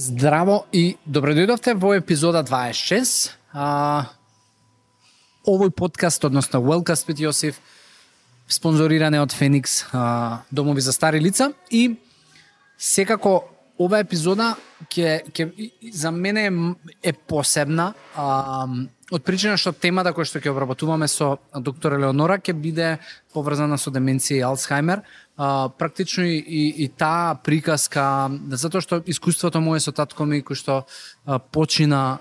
Здраво и добро дојдовте во епизода 26. Овој подкаст, односно Wellcast with Јосиф, спонзориране од Феникс, домови за стари лица, и секако ова епизода за мене е посебна, од причина што темата која што ќе обработуваме со доктор Елеонора ќе биде поврзана со деменција и Алцхаймер. Практично и таа приказка, затоа што искуството мое со татко ми кој што почина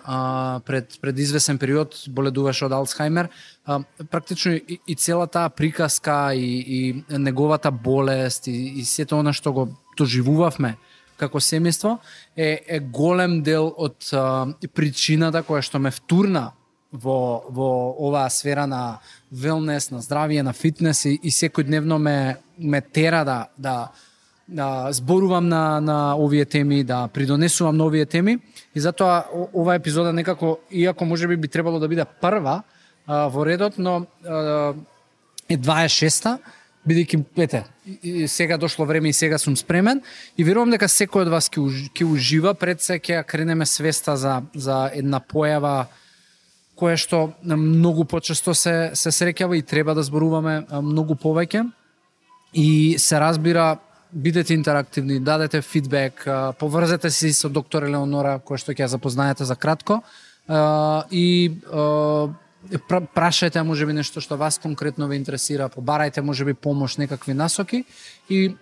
пред извесен период, боледуваше од Алцхаймер, практично и цела таа приказка и неговата болест и сето она што го доживувавме како семејство е голем дел од причината која што ме втурна во оваа сфера на велнес, на здравие, на фитнес и секојдневно ме тера да зборувам на овие теми, да придонесувам на овие теми, и затоа оваа епизода некако, иако можеби би требало да биде прва во редот, но е 26-та, бидејќи сега дошло време и сега сум спремен, и верувам дека секој од вас ќе ужива. Пред се ќе кренеме свеста за една појава која што многу почесто се среќава и треба да зборуваме многу повеќе. И се разбира, бидете интерактивни, дадете фидбек, поврзете се со доктор Елеонора, која што ќе ја запознаете за кратко, и прашајте можеби нешто што вас конкретно ве интересира, побарајте можеби помош, некакви насоки, и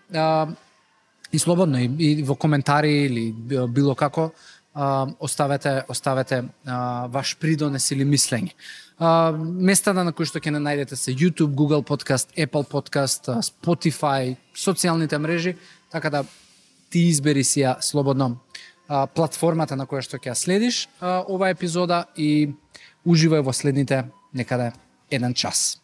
слободно и во коментари или било како оставете ваш придонес или мислење. Местата на кои што ќе не најдете се YouTube, Google Podcast, Apple Podcast, Spotify, социјалните мрежи, така да ти избери си ја слободно платформата на која што ќе ја следиш оваа епизода и уживај во следните некаде 1 час.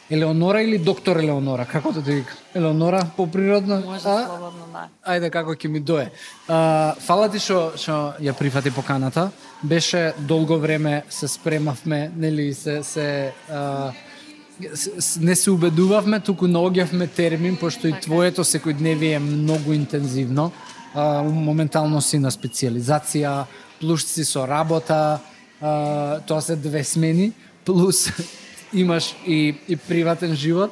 Елеонора или доктор Елеонора, како да те викам? Елеонора поприродно? Може слободно, да. Ајде, како ќе ми дое. Фала ти што ја прифати поканата. Беше долго време се спремавме, нели не се убедувавме, туку наоѓавме термин, пошто и твоето секојдневие е многу интензивно. Моментално си на специјализација, плюс си со работа, тоа се 2 смени, плюс имаш и приватен живот,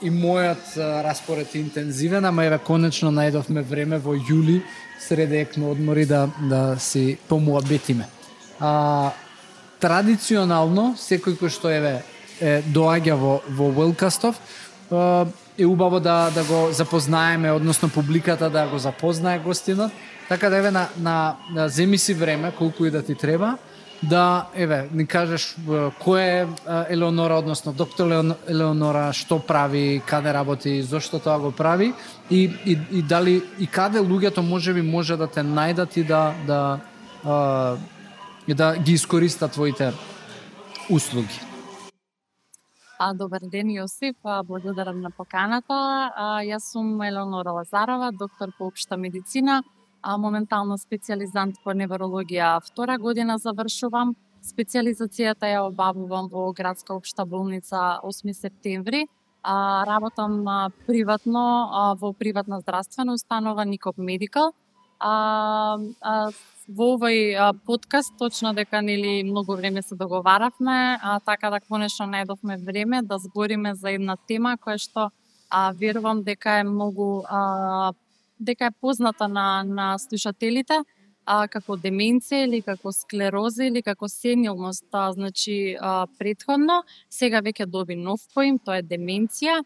и мојот распоред е интензивен, ама еве конечно најдовме време во јули сред екно одмори да си помуабетиме. Традиционално секој кој што доаѓа во Wellcastов е убаво да го запознаеме, односно публиката да го запознае гостинот, така да земи си време колку и да ти треба, да ни кажеш кој е Елеонора, односно доктор Елеонора, што прави, каде работи, зошто тоа го прави, и дали и каде луѓето може да те најдат и да ги искористат твоите услуги. Добар ден, Јосиф, благодарам на поканата. Јас сум Елеонора Лазарова, доктор по општа медицина, моментално специјализант по неврологија, 2 година завршувам. Специјализацијата ја обавувам во градска општа болница 8 септември. Работам приватно во приватна здравствена установа Никоп Медикал. Во овој подкаст точно дека многу време се договаравме, така да конечно најдовме време да збориме за една тема која што верувам дека е многу дека е позната на слушателите, како деменција или како склероза или како сенилност, значи претходно, сега веќе доби нов поим, тоа е деменција.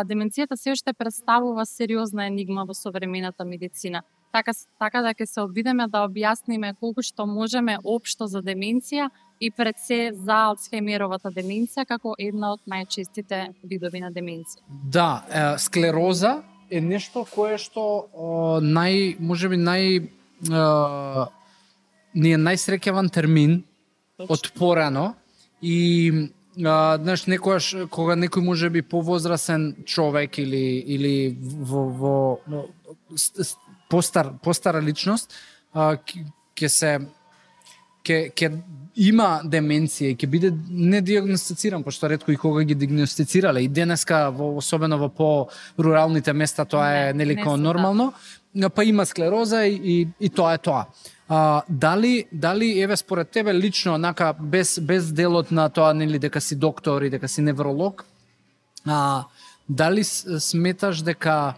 Деменцијата се уште представува сериозна енигма во современата медицина. Така да ќе се обидеме да објасниме колку што можеме општо за деменција и пред се за Алцхаймеровата деменција како една од најчестите видови на деменција. Да, склероза е нешто кое што можеби ни е најсреќаван термин од порано, и знаеш, некојаш кога некој можеби повозрасен човек или во постара личност, ќе има деменција и ќе биде недиагностициран, пошто ретко и кога ги диагностицирале. И денеска, особено во по-руралните места, тоа е нелико нормално. Па има склероза и тоа е тоа. Дали еве според тебе лично, онака без делот на тоа, нели, дека си доктор и дека си невролог, дали сметаш дека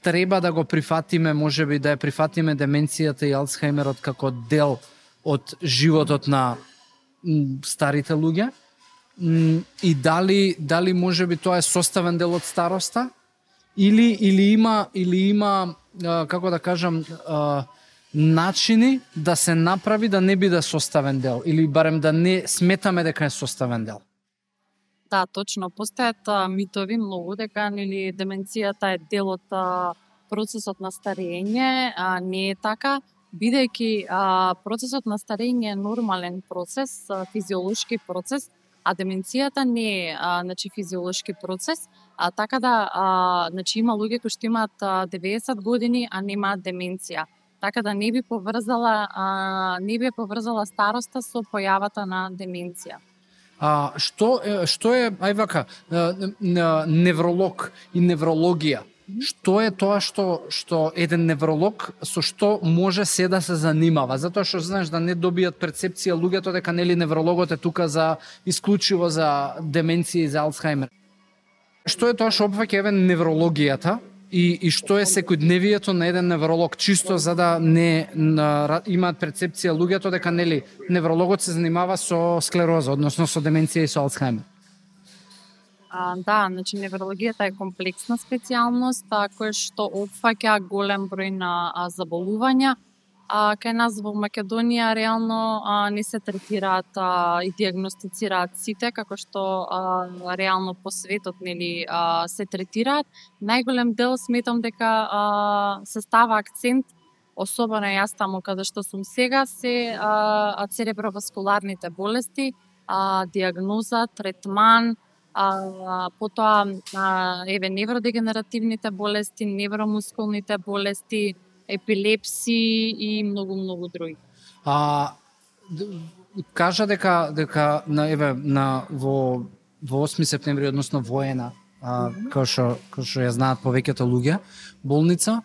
треба да го прифатиме, можеби да ја прифатиме деменцијата и Алцхајмерот како дел од животот на старите луѓе? И дали можеби тоа е составен дел од староста? Или има како да кажам, начини да се направи да не биде составен дел, или барем да не сметаме дека е составен дел? Да, точно. Постојат митови многу дека нели деменцијата е дел од процесот на старење, не е така, бидејќи процесот на старење е нормален процес, физиолошки процес, а деменцијата не е значи физиолошки процес, така да значи има луѓе кои што имаат 90 години, а немаат деменција. Така да не би поврзала староста со појавата на деменција. Што е ај вака, невролог и неврологија? Што е тоа што еден невролог со што може се да се занимава? Затоа што знаеш да не добијат перцепција луѓето дека нели неврологот е тука за исклучиво за деменција и за Алцхајмер. Што е тоа што опфаќа еве неврологијата и што е секојдневието на еден невролог, чисто за да не имаат перцепција луѓето дека нели неврологот се занимава со склероза, односно со деменција и со Алцхајмер? Да, значи неврологијата е комплексна специјалност која што опфаќа голем број на заболувања. Кај нас во Македонија реално не се третираат и диагностицираат сите како што реално по светот нели се третираат. Најголем дел сметам дека се става акцент, особено јас таму каде што сум сега, се цереброваскуларните болести, диагноза, третман, потоа еве невродегенеративните болести, невромускулните болести, епилепсии и многу други. Кажа дека во 8 септември, односно воена, како што ја знаат повеќето луѓе, болница,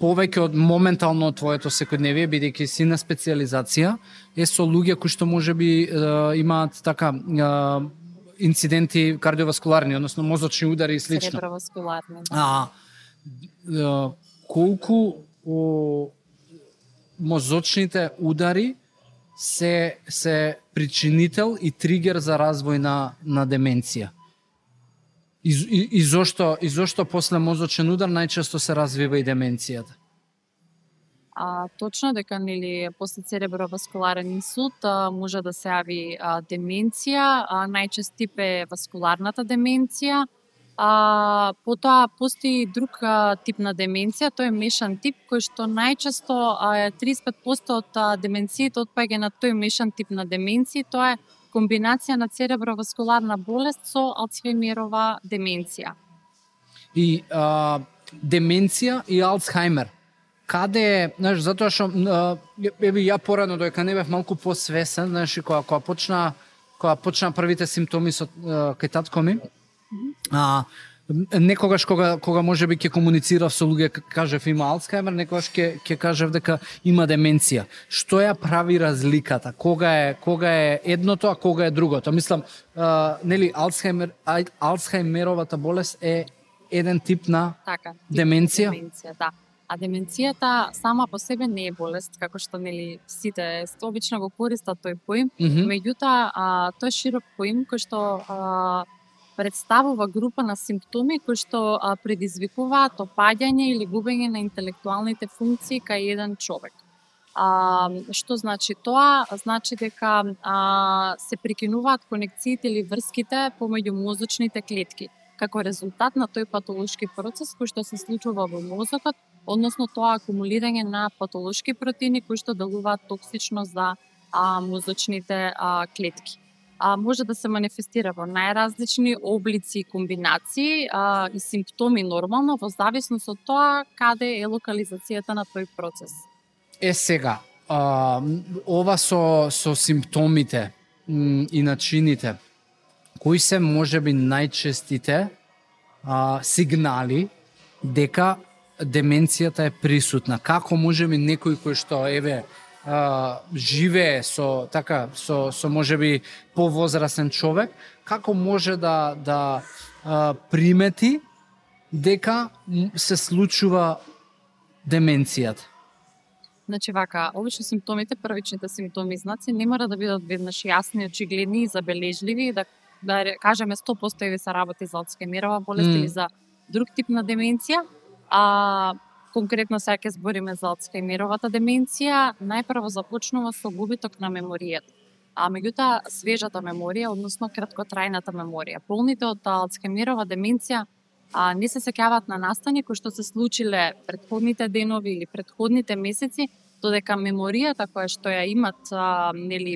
повеќе од моментално твоето секојдневие, бидејќи си на специјализација, е со луѓе кои што можеби имаат така инциденти кардиоваскуларни, односно мозочни удари и слично. Цереброваскуларни. Колку мозочните удари се причинител и тригер за развој на деменција? И зошто после мозочен удар најчесто се развива и деменцијата? Точно дека нели после цереброваскуларен инсулт може да се јави деменција, најчест тип е васкуларната деменција. Потоа постои друг тип на деменција, тој е мешан тип, кој што најчесто 35% од деменциите отпаѓа на тој мешан тип на деменција, тоа е комбинација на цереброваскуларна болест со Алцхајмерова деменција. И деменција и Алцхајмер, каде е, знаеш, затоа што еве ја порано додека не бев малку посвесен, знаеш, кога почна првите симптоми со кај татко ми, некогаш кога можеби ќе комуницирав со луѓе, кажев има Алцхајмер, некогаш ќе кажев дека има деменција. Што ја прави разликата? Кога е едното, а кога е другото? Мислам, нели Алцхајмеровата болест е еден тип на деменција? Да. А деменцијата сама по себе не е болест, како што нели сите обично го користат тој поим, меѓутоа тој широк поим кој што представува група на симптоми кои што предизвикуваат опаѓање или губење на интелектуалните функции кај еден човек. Што значи тоа? Значи дека се прекинуваат конекциите или врските помеѓу мозочните клетки, како резултат на тој патолошки процес кој што се случува во мозокот, односно тоа акумулирање на патолошки протеини кои што делуваат токсично за мозочните клетки. може да се манифестира во најразлични облици и комбинации и симптоми нормално во зависност од тоа каде е локализацијата на тој процес. Сега, ова со симптомите и начините, кои се можеби најчестите сигнали дека деменцијата е присутна? Како можеби некој кој што живее со можеби повозрасен човек, како може да примети дека се случува деменцијата? Значи вака, обично симптомите, првичните симптоми и знаци не мора да бидат веднаш јасни, очигледни и забележливи, да кажеме 100% ви се работи за Алцхаймерова болест или за друг тип на деменција. Конкретно сега ќе збориме за Алцхаймеровата деменција, најпрво започнува со губиток на меморијата. Меѓутоа, свежата меморија, односно краткотрајната меморија. Болните од Алцхаймерова деменција не се сеќаваат на настани кои што се случиле претходните денови или претходните месеци, додека меморијата која што ја имат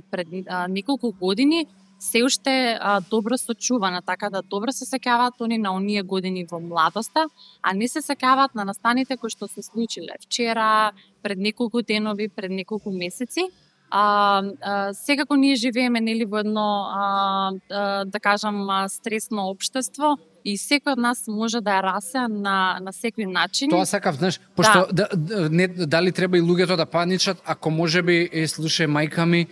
пред неколку години се уште добро сочувана, така да добро се сеќаваат они на оние години во младоста, а не се сеќаваат на настаните кои што се случиле вчера, пред неколку денови, пред неколку месеци. Секако ние живееме во едно, да кажам, стресно општество и секој од нас може да ја расе на секој начин. Тоа сакав, знаеш, пошто дали треба и луѓето да паничат, ако можеби слушај мајка ми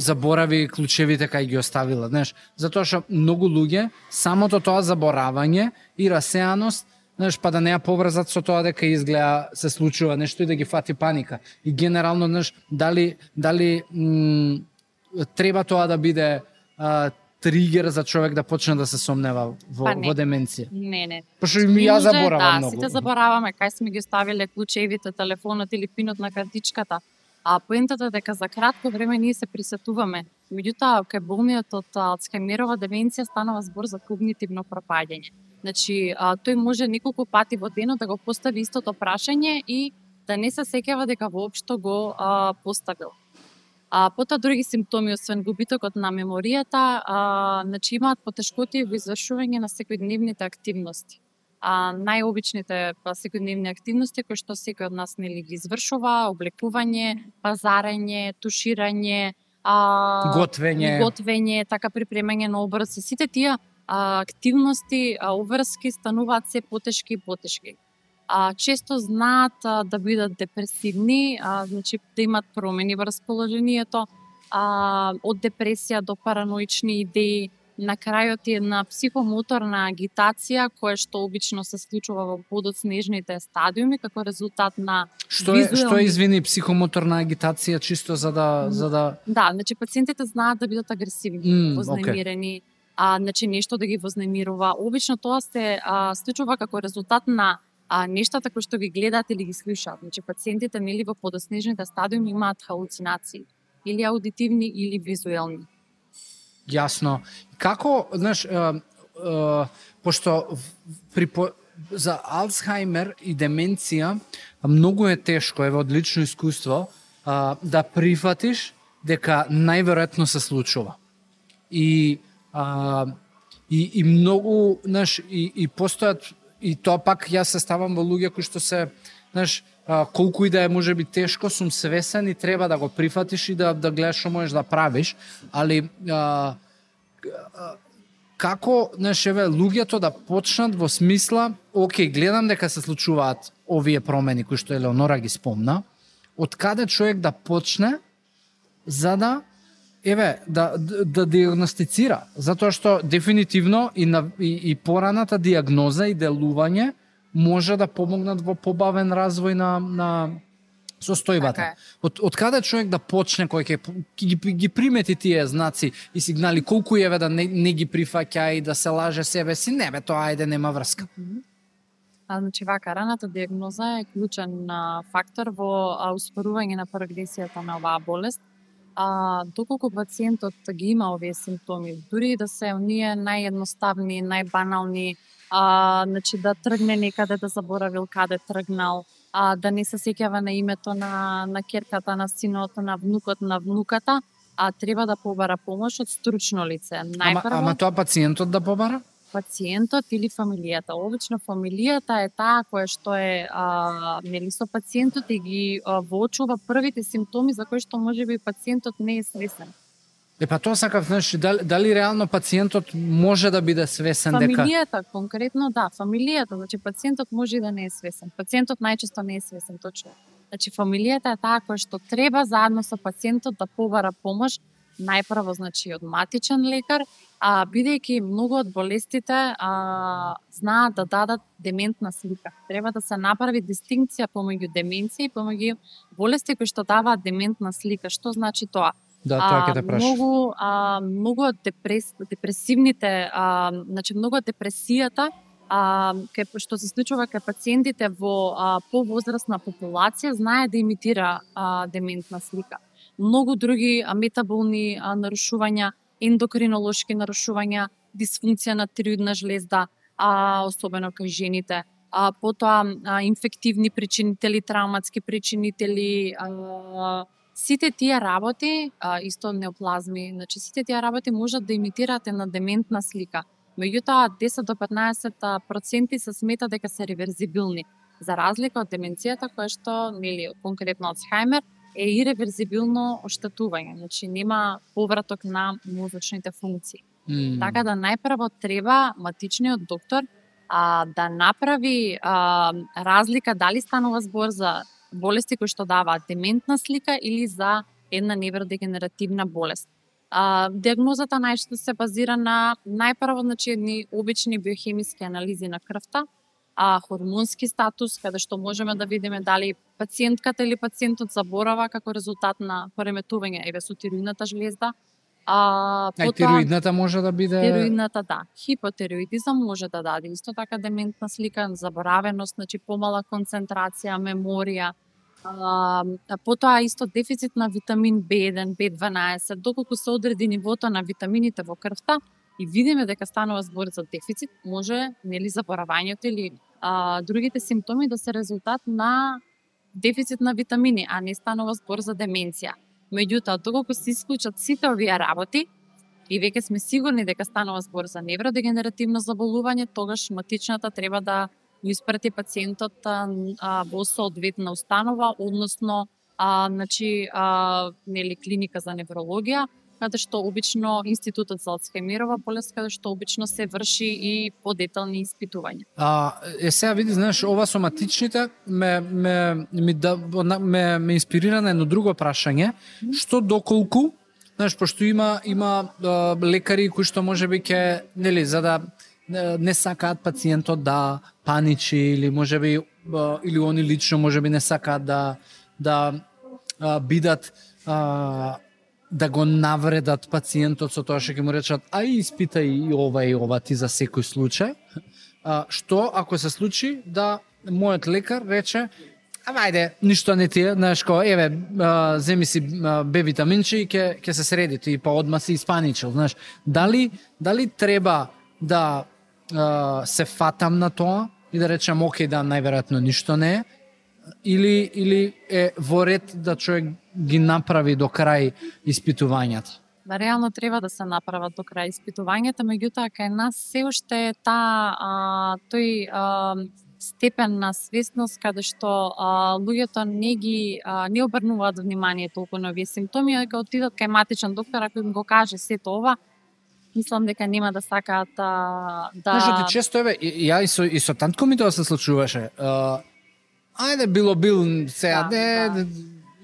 заборави клучевите кај ги оставила, знаеш, затоа што многу луѓе самото тоа заборавање и расеаност, знаеш, па да не ја поврзат со тоа дека изгледа се случува нешто и да ги фати паника. И генерално, знаеш, дали треба тоа да биде тригер за човек да почне да се сомнева во деменција? Не. Пошто и ја заборавам многу. Сите забораваме кај сме ги оставиле клучевите, телефонот или пинот на картичката. Поентата е дека за кратко време ние се присетуваме. Меѓутоа, кај болниот од Алцхаймерова деменција станува збор за когнитивно пропаѓање. Значи, тој може неколку пати во денот да го постави истото прашање и да не се сеќава дека воопшто го поставил. Потоа други симптоми, освен губитокот на меморијата, значи имаат потешкоти во извршување на секојдневните активности. Најобичните секојдневни активности кои што секој од нас ги извршува: облекување, пазарење, туширање, готвење, така припремање на обрци. Сите тие активности, обврски стануваат се потешки и потешки. Често знаат да бидат депресивни, значи да имат промени во расположението, од депресија до параноични идеи, на крајот е една психомоторна агитација која што обично се случува во подоцнежните стадиуми како резултат на Што е извини психомоторна агитација, чисто за да Да, значи пациентите знаат да бидат агресивни, вознемирени, значи нешто да ги вознемирува. Обично тоа се случува како резултат на нештата кои што ги гледаат или ги слушаат. Значи пациентите во подоснежните стадиуми имаат халуцинации, или аудитивни или визуелни. Јасно. Како, знаеш, пошто за Алцхаймер и деменција многу е тешко, од лично искуство, да прифатиш дека најверојатно се случува. И многу, знаеш, и постојат, и тоа пак јас се ставам во луѓе кои што се, знаеш, колку и да е можеби тешко, сум свесен и треба да го прифатиш и да гледаш што можеш да правиш, али како, знаеш, луѓето да почнат во смисла, окей, гледам дека се случуваат овие промени кои што Елеонора ги спомна, од каде човек да почне за да да диагностицира, затоа што дефинитивно и пораната диагноза и делување може да помогнат во побавен развој на состојбата. Од каде човек да почне кој ќе ги примети тие знаци и сигнали, колку да не ги прифаќа и да се лаже себе си, тоа нема врска. Значи вака, раната диагноза е клучен фактор во успорување на прогресијата на оваа болест. Доколку пациентот ги има овие симптоми, дури да се оние наједноставни, најбанални, значи да тргне некаде, да заборавил каде тргнал, да не се сеќава на името на ќерката, на синот, на внукот, на внуката, треба да побара помош од стручно лице. Најпрво, Ама тоа пациентот да побара? Пациентот или фамилијата. Обично фамилијата е таа која што е нели со пациентот и ги воочува првите симптоми за кои што можеби пациентот не е свесен. Па тоа сакав, знаеш, дали реално пациентот може да биде свесен дека... Фамилијата, конкретно да, фамилијата, значи пациентот може и да не е свесен. Пациентот најчесто не е свесен, точно. Значи фамилијата е таа која што треба заедно со пациентот да побара помош, најпрво значи од матичен лекар, бидејќи многу од болестите знаат да дадат дементна слика. Треба да се направи дистинкција помеѓу деменција и помеѓу болести кои што даваат дементна слика. Што значи тоа? Да, тоа ќе те прашам. Многу од депресивните, значи многу од депресијата што се случува кај пациентите во повозрастна популација знае да имитира дементна слика. Многу други метаболни нарушувања, ендокринолошки нарушувања, дисфункција на тироидна жлезда, особено кај жените, потоа инфективни причинители, травматски причинители, сите тие работи, исто неоплазми, значи сите тие работи можат да имитираат една дементна слика. Меѓутоа 10 до 15% се смета дека се реверзибилни, за разлика од деменцијата која што, нели, конкретно Алцхајмер, е иреверзибилно оштетување, значи нема повраток на мозочните функции. Така да најпрво треба матичниот доктор да направи разлика дали станува збор за болести кои што даваат дементна слика или за една невродегенеративна болест. Диагнозата најчесто се базира на најпрво значи едни обични биохемиски анализи на крвта, хормонски статус, каде што можеме да видиме дали пациентката или пациентот заборава како резултат на пореметување со тироидната жлезда. Тироидната може да биде... Тироидната, да. Хипотероидизам може да даде исто така дементна слика, заборавеност, значи помала концентрација, меморија. Потоа исто дефицит на витамин B1, B12, доколку се одреди нивото на витамините во крвта, и видиме дека станува збор за дефицит, може нели заборавањето или другите симптоми да се резултат на дефицит на витамини, а не станува збор за деменција. Меѓутоа, доколку се исклучат сите овие работи и веќе сме сигурни дека станува збор за невродегенеративно заболување, тогаш матичната треба да го испрати пациентот во соодветна установа, односно значи нели клиника за неврологија, каде што обично Институтот за Алцхајмерова болест, каде што обично се врши и подетални испитувања. Сега види, знаеш, ова со матичните ме инспирира на едно друго прашање, што доколку, знаеш, пошто има лекари кои што можеби ќе, нели, за да не сакаат пациентот да паничи или можеби или они лично можеби не сакаат да бидат да го навредат пациентот со тоа што ќе му речат испитај и ова ти за секој случај. Што ако се случи да мојот лекар рече ајде, ништо не ти е, знаеш ко, земи си Б витаминче и ќе се среди, ти па одма си испаничил, знаеш. Дали треба да се фатам на тоа и да речам окей, да, најверојатно ништо не е, или е во ред да човек ги направи до крај испитувањата? Реално треба да се направат до крај испитувањата, меѓутоа кај нас се уште е тој степен на свесност каде што луѓето не обрнуваат внимание толку на овие симптоми, дека отидат кај матичен доктор ако им го каже сето ова, мислам дека нема да сакаат да... Знаеш, ти често ја и со тантко ми тоа се случуваше. Ајде, бил сега,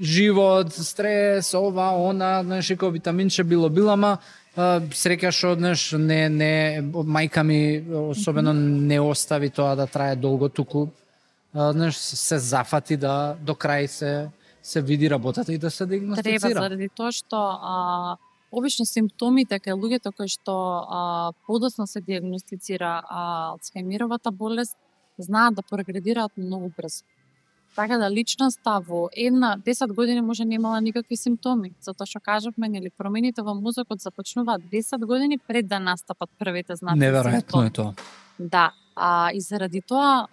живот, стрес, ова, она, знаеш, како витаминче било, ама среќаш, знаеш, не, мајка ми особено не остави тоа да трае долго, туку, знаеш, се зафати да до крај се види работата и да се диагностицира. Треба, заради тоа што обично симптомите кај луѓето кои што подоцна се диагностицира Алцхајмеровата болест знаат да прогредираат многу брзо. Така да личноста во 10 години може немала никакви симптоми, затоа што кажавме, нели, промените во мозокот започнуваат 10 години пред да настапат првите знаци. Неверојатно е тоа. Да, и заради тоа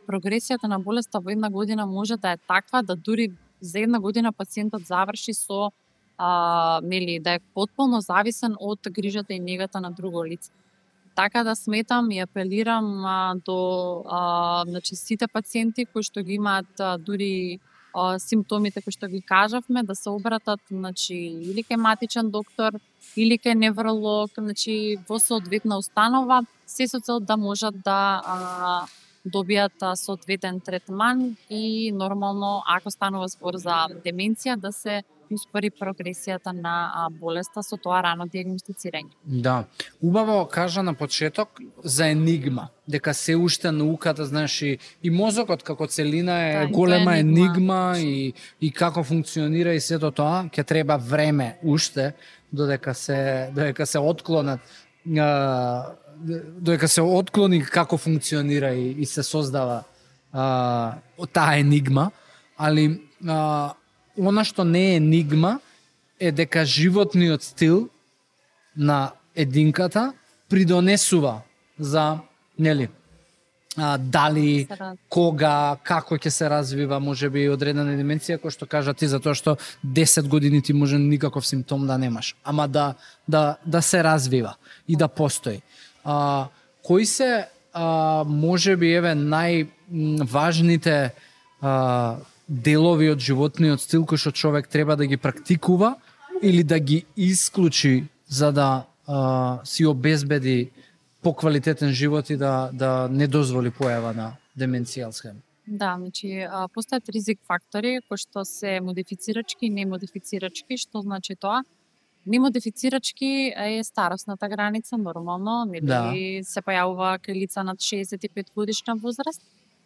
прогресијата на болеста во 1 година може да е таква да дури за 1 година пациентот заврши со нели, да е потполно зависен од грижата и негата на друго лице. Така да сметам и апелирам до значи сите пациенти кои што ги имаат дури симптомите кои што ги кажавме, да се обратат значи или кај матичен доктор или кај невролог, значи во соодветна установа, се со цел да можат да добијат соодветен третман и нормално ако станува збор за деменција да се успори прогресијата на болеста со тоа рано диагностицирање. Да, убаво кажа на почеток за енигма, дека се уште науката, знаеш, и мозокот како целина е голема енигма и како функционира и сето тоа, ќе треба време уште додека се отклонат додека се отклони како функционира и се создава таа енигма, али она што не е енигма е дека животниот стил на единката придонесува за, нели, дали, кога, како ќе се развива, можеби одредена деменција, кој што кажа ти, затоа што 10 години ти може никаков симптом да немаш, ама да се развива и да постои. Кои се можеби најважните делови од животниот стил кои што човек треба да ги практикува или да ги исклучи за да си обезбеди поквалитетен живот и да не дозволи појава на деменција Алцхаймер? Да, значи постојат ризик фактори кои што се модифицирачки и немодифицирачки. Што значи тоа? Немодифицирачки е старосната граница, нормално, нели се појавува кај лица над 65 годишна возраст,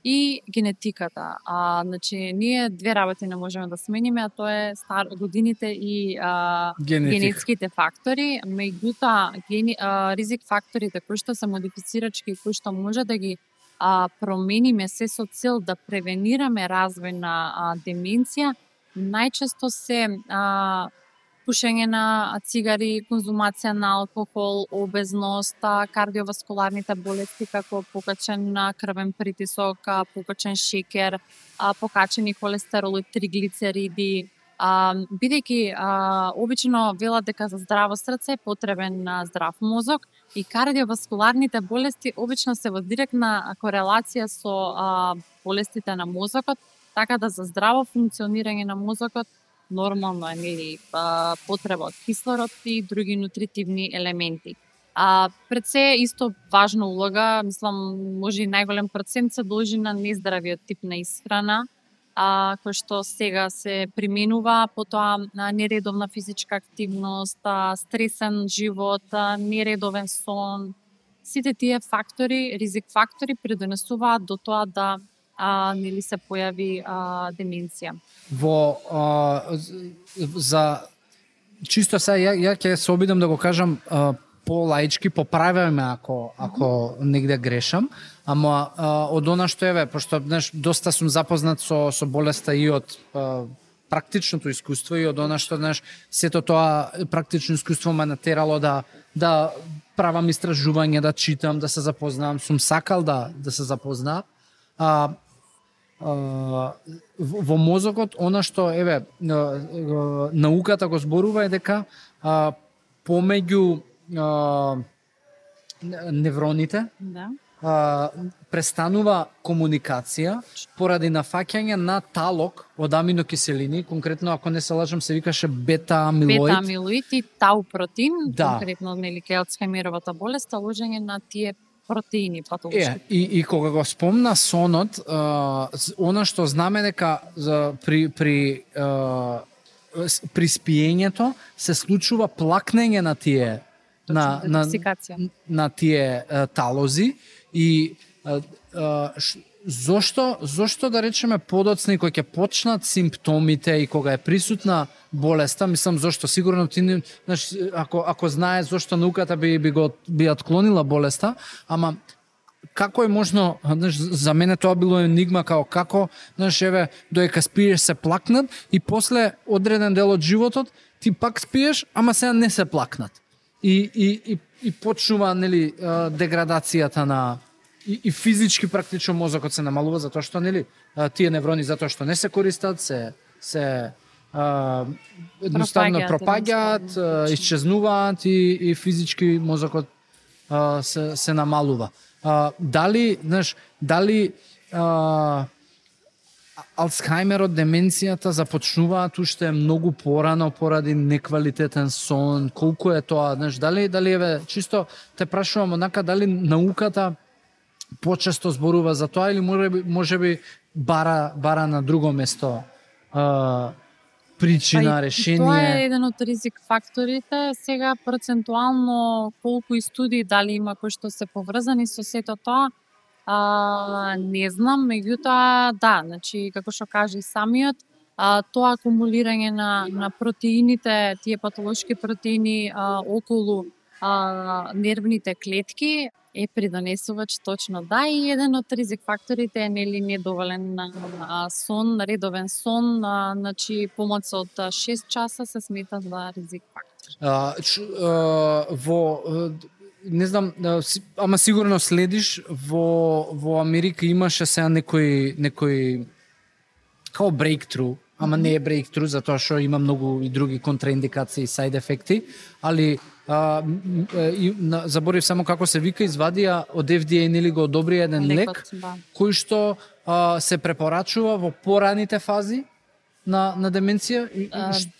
и генетиката. Значи, ние две работи не можеме да смениме, а тоа е годините и генетските фактори. Меѓутоа, ризик факторите кои што се модифицирачки и кои што може да ги промениме се со цел да превенираме развој на деменција, најчесто се пушење на цигари, конзумација на алкохол, обезност, кардиоваскуларните болести како покачен крвен притисок, покачен шекер, покачени холестерол и триглицериди. Бидејќи обично велат дека за здраво срце е потребен здрав мозок и кардиоваскуларните болести обично се во директна корелација со болестите на мозокот, така да за здраво функционирање на мозокот нормално е нели потреба од кислород и други нутритивни елементи. Пред се исто важна улога, мислам, може и најголем процент се должи на нездравиот тип на исхрана, кој што сега се применува, потоа нередовна физичка активност, стресен живот, нередовен сон. Сите тие фактори, ризик фактори придонесуваат до тоа да нели се појави деменција. За чисто сега ја ќе се обидам да го кажам полаички, поправяме ако негде грешам, ама од она што пошто доста сум запознат со болеста и од практичното искуство и од она што сето тоа практично искуство ме натерало да правам истражување, да читам, да се запознавам, сум сакал да се запознаам. Во мозокот, она што науката го зборува е дека помеѓу невроните престанува комуникација поради нафаќање на талок од аминокиселини, конкретно ако не се лажам се викаше бета-амилоид. Бета-амилоид и тау протеин, конкретно нели кај Алцхаймеровата болест, лужење на тие протеини патолошки. И кога го спомна сонот, она што знаме дека при спиењето се случува плакнење на тие на тие талози и зошто да речеме подоцна кога ќе почнат симптомите и кога е присутна болеста, мислам зошто сигурно ти ако знае зошто науката би отклонила болеста, ама како е можно, за мене тоа било енигма како додека спиеш се плакнат и после одреден дел од животот ти пак спиеш, ама сега не се плакнат. И почнува нели деградацијата на и физички практично мозокот се намалува затоа што нели тие неврони затоа што не се користат, се едноставно пропаѓаат, исчезнуваат и физички мозокот се намалува. Дали Алцхајмерот, деменцијата започнуваат уште многу порано поради неквалитетен сон? Колку е тоа? Дали еве чисто те прашувам онака, дали науката почесто зборува за тоа или можеби бара на друго место причина, решение? Тоа е еден од ризик факторите. Сега процентуално колку и студии дали има кои што се поврзани со сето тоа, не знам, меѓутоа да, значи како што кажа и самиот, тоа акумулирање на протеините, тие патолошки протеини околу нервните клетки е придонесувач точно да, и еден од ризик факторите е нели недоволен сон, редовен сон, значи помоц од 6 часа се смета за ризик фактор. Не знам, ама сигурно следиш, во Америка имаше сега некој као breakthrough, ама не е breakthrough, затоа што има многу и други контраиндикации и side ефекти, али заборив само како се вика, извадија од FDA нели го одобри еден лек, кој што се препорачува во пораните фази на деменција?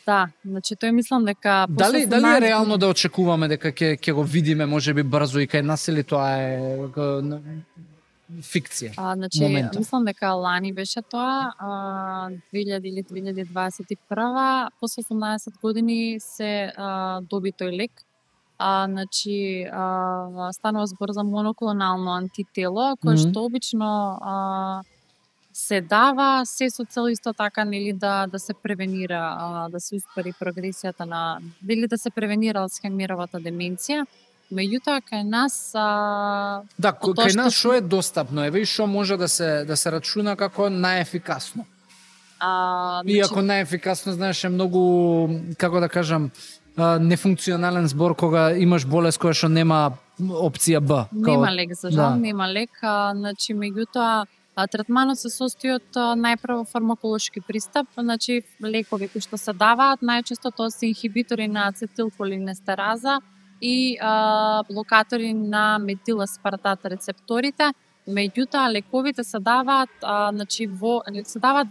Да, значи тој мислам дека Дали е реално да очекуваме дека ќе го видиме можеби брзо и кај нас, или тоа е фикција? Значи момента? Мислам дека лани беше тоа, 2000 или 2021, после 18 години се доби тој лек. Значи станува збор за моноклонално антитело, кое што обично се дава се со цел исто така нели да се превенира, да се успори прогресијата на или да се превенира алцхајмеровата деменција. Меѓутоа кај нас да, кај нас што е достапно, еве и што може да се рачуна како најефикасно. Иако најефикасно, знаеш, е многу, како да кажам, нефункционален збор кога имаш болест која што нема опција Б. Нема лек, за жал, нема лек, значи меѓутоа третманот се состои од најпрво фармаколошки пристап, значи лекови кои што се даваат, најчесто тоа се инхибитори на ацетилколинестераза и блокатори на метиласпартат рецепторите. Меѓутоа лековите се даваат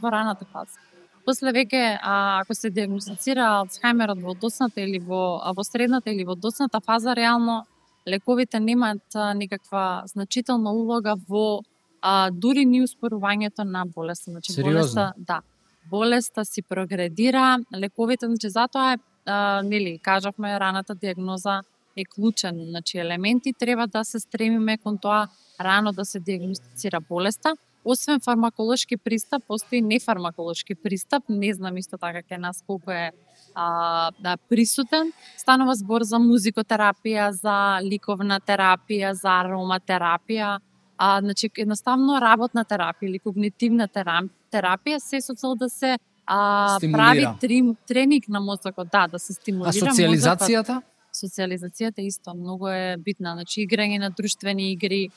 во раната фаза. После веќе ако се диагностицира алцхајмерот во досната или во средната или во досната фаза, реално лековите немаат никаква значителна улога во дури ни успорувањето на болеста. Значи болеста си прогредира, лековите, значи затоа е нели кажавме раната диагноза е клучен, значи елементи треба да се стремиме кон тоа рано да се диагностицира болеста. Освен фармаколошки пристап, постои нефармаколошки пристап, не знам исто така кај нас колку е присутен. Станува збор за музикотерапија, за ликовна терапија, за ароматерапија, значи едноставно работна терапија или когнитивна терапија се со цел да се прави тренинг на мозокот, да се стимулира. А социализацијата? Социализацијата исто многу е битна, значи играње на друштвени игри,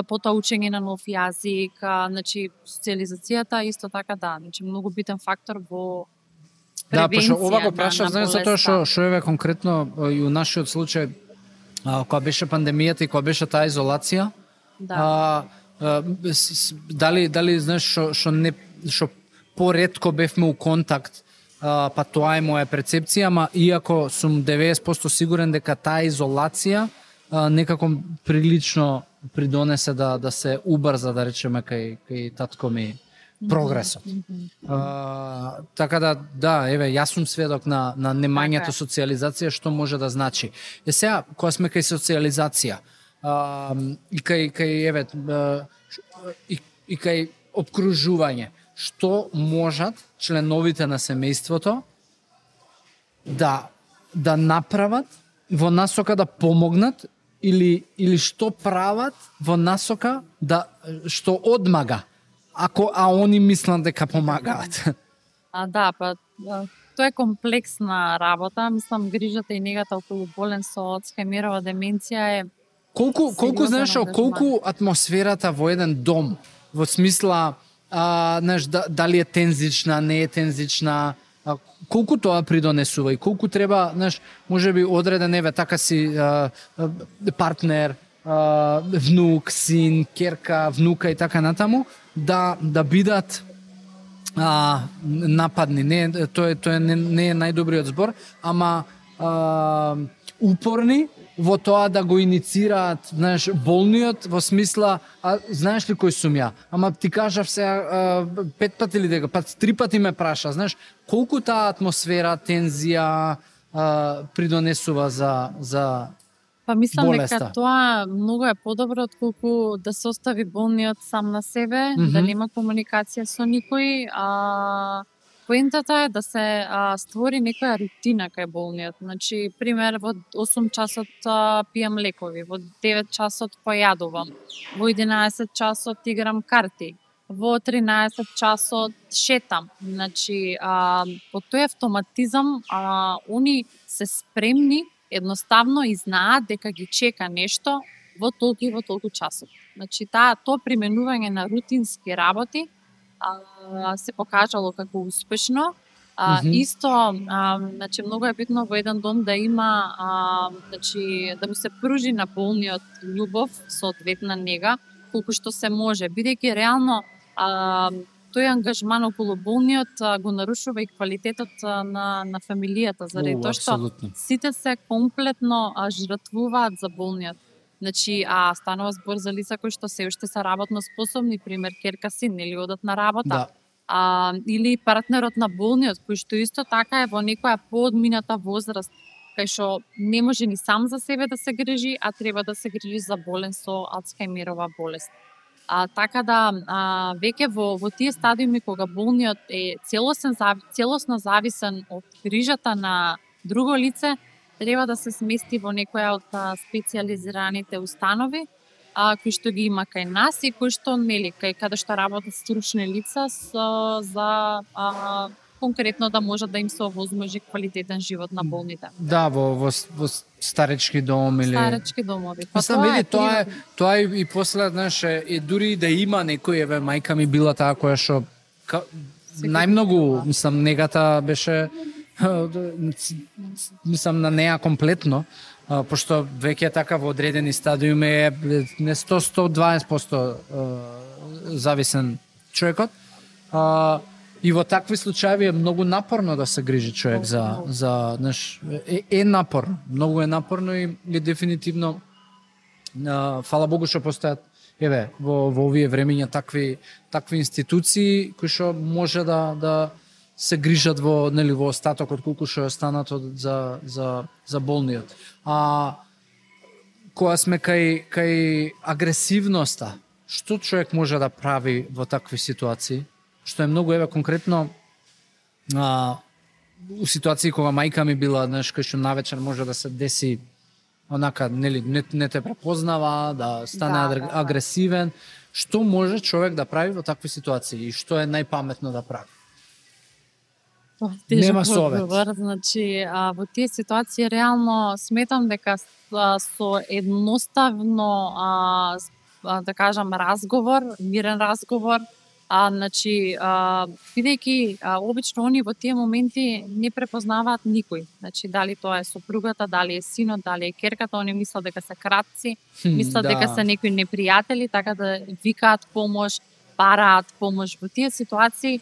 потоа учење на нов јазик, значи социализацијата исто така значи многу битен фактор во превенција. Да, пошто ова го прашав, знаеш, затоа што еве конкретно и у нашиот случај кога беше пандемијата и кога беше таа изолација, дали знаеш што поретко бевме у контакт, па тоа е моја перцепција, ама иако сум 90% сигурен дека таа изолација некако прилично придонесе да се убрза, да речеме, кај татко ми прогресот. Така еве, јас сум сведок на немањето социализација, што може да значи. Сега, кога сме кај социализација, и кај обкружување, што можат членовите на семејството да направат во насока да помогнат, или што прават во насока што одмага, а они мислат дека помагаат? Тоа е комплексна работа. Мислам, грижата и негата околу болен со алцхајмерова деменција е колку знаеш, колку атмосферата во еден дом, во смисла знаеш, дали е тензична, не е тензична, колку тоа придонесува и колку треба, знаеш, можеби одреден еве така си партнер, внук, син, керка, внука и така натаму да бидат нападни. Тоа не е најдобриот збор, ама упорни во тоа да го иницираат, знаеш, болниот во смисла, знаеш ли кој сум ја? Ама ти кажав се 5 пати или дека, 3 пати ме праша, знаеш, колку таа атмосфера, тензија придонесува за Па мислам болеста. дека тоа многу е подобро отколку да се остави болниот сам на себе, да нема комуникација со никој. Поентата е да се створи некоја рутина кај болниот. Значи, пример, во 8 часот пијам лекови, во 9 часот појадувам, во 11 часот играм карти, во 13 часот шетам. Значи, по тој автоматизам, они се спремни едноставно и знаат дека ги чека нешто во толку и во толку часот. Значи, тоа применување на рутински работи се покажало како успешно. Исто, значи, многу е битно во еден дом да има, значи, да му се пружи на болниот љубов, соодветна нега, колку што се може, бидејќи реално тој ангажман околу болниот го нарушува и квалитетот на фамилијата, заради тоа што сите се комплетно жртвуваат за болниот. Значи, станува збор за лица кои што се уште се работно способни, пример керка син, или одат на работа. Или партнерот на болниот, кој што исто така е во некоја поодмината возраст, кај што не може ни сам за себе да се грижи, а треба да се грижи за болен со Алцхајмерова болест. Така да, веќе во тие стадиуми кога болниот е целосно зависен од грижата на друго лице, треба да се смести во некоја од специјализираните установи, кои што ги има кај нас и кои што нели каде што работат стручни лица за конкретно да може да им се овозможи квалитетен живот на болните. Да, во старечки дом или старечки домови. Па мислам, тоа е и после, знаеш, и дури да има некој, еве мајка ми била таа која што најмногу, мислам, негата беше мислам на неа комплетно, пошто веќе така во одредени стадиуми е не 100-120% зависен човекот. И во такви случаи е многу напорно да се грижи човек за знаеш, е напорно, многу е напорно и дефинитивно фала Богу што постојат еве во овие времења такви институции кои што може да се грижат во остатокот колку што е останато за болниот. Кога сме кај агресивноста, што човек може да прави во такви ситуации? Што е многу, еве, конкретно у ситуации кога мајка ми била, знаеш, кај што навечер може да се деси онака, нели, не те препознава, да стане агресивен. Што може човек да прави во такви ситуации и што е најпаметно да прави? Нема совет. Значи, во тие ситуации реално сметам дека со едноставно да кажам разговор, мирен разговор, значи, бидејќи обично они во тие моменти не препознаваат никој. Значи, дали тоа е сопругата, дали е синот, дали е керката, они мислат дека се кратци, мислат дека се некои непријатели, така да викаат помош, бараат помош. Во тие ситуации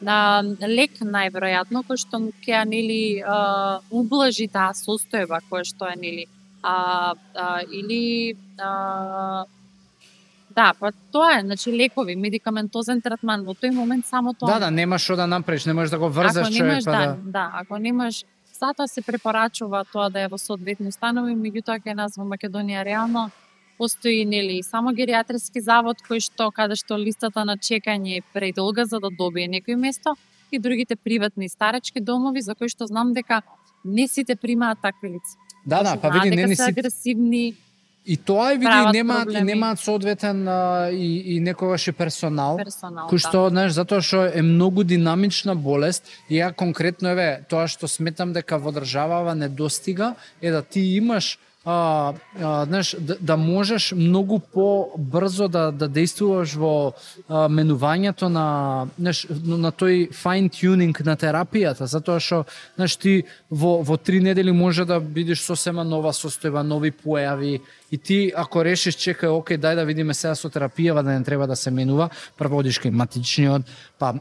лек најверојатно кој што ќе нели ублажи таа состојба која што е нели или да, па тоа е, значи лекови, медикаментозен третман, во тој момент само тоа. Да, нема што да направиш, не можеш да го врзаш човек, па да, ако немаш, затоа се препорачува тоа да е во соодветни установи, меѓутоа кај нас во Македонија реално постои нели само геријатриски завод кој што каде што листата на чекање е предолга за да добие некој место и другите приватни старечки домови за кои што знам дека не сите примаат такви лица. Да, па види не се агресивни. И тоа е види немаат соодветен и некогаш и персонал кој што, знаеш, затоа што е многу динамична болест и ја конкретно еве тоа што сметам дека во државава недостига е да ти имаш знаеш, да можеш многу побрзо да действуваш во менувањето на, знаеш, на тој fine tuning на терапијата, затоа што, знаеш, ти во 3 недели може да видиш сосема нова состојба, нови појави, и ти ако решиш, чекај, окей, дај да видиме сега со терапија, да не треба да се менува, прво одиш кај матичниот, па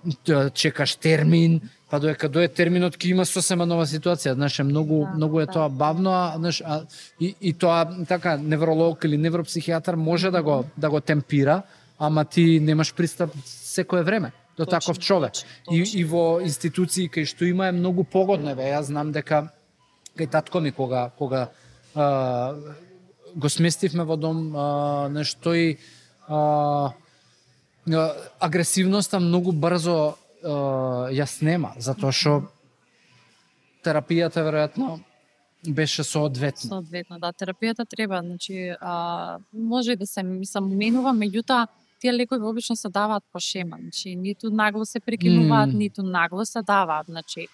чекаш термин, па додека дое терминот ќе има сосема нова ситуација, знаеш, многу е тоа бавно, знаеш, и тоа така невролог или невропсихијатар може да го темпира, ама ти немаш пристап секое време до таков човек. И во институции кај што има е многу погодно, јас знам дека кај татко ми кога го сместивме во дом, нешто и агресивноста многу брзо ја снема, затоа што терапијата веројатно беше соодветна. Соодветно, да, терапијата треба, значи може и да се менува, меѓутоа тие лекови обично се даваат по шема, значи ниту нагло се прекинуваат, ниту нагло се даваат, значи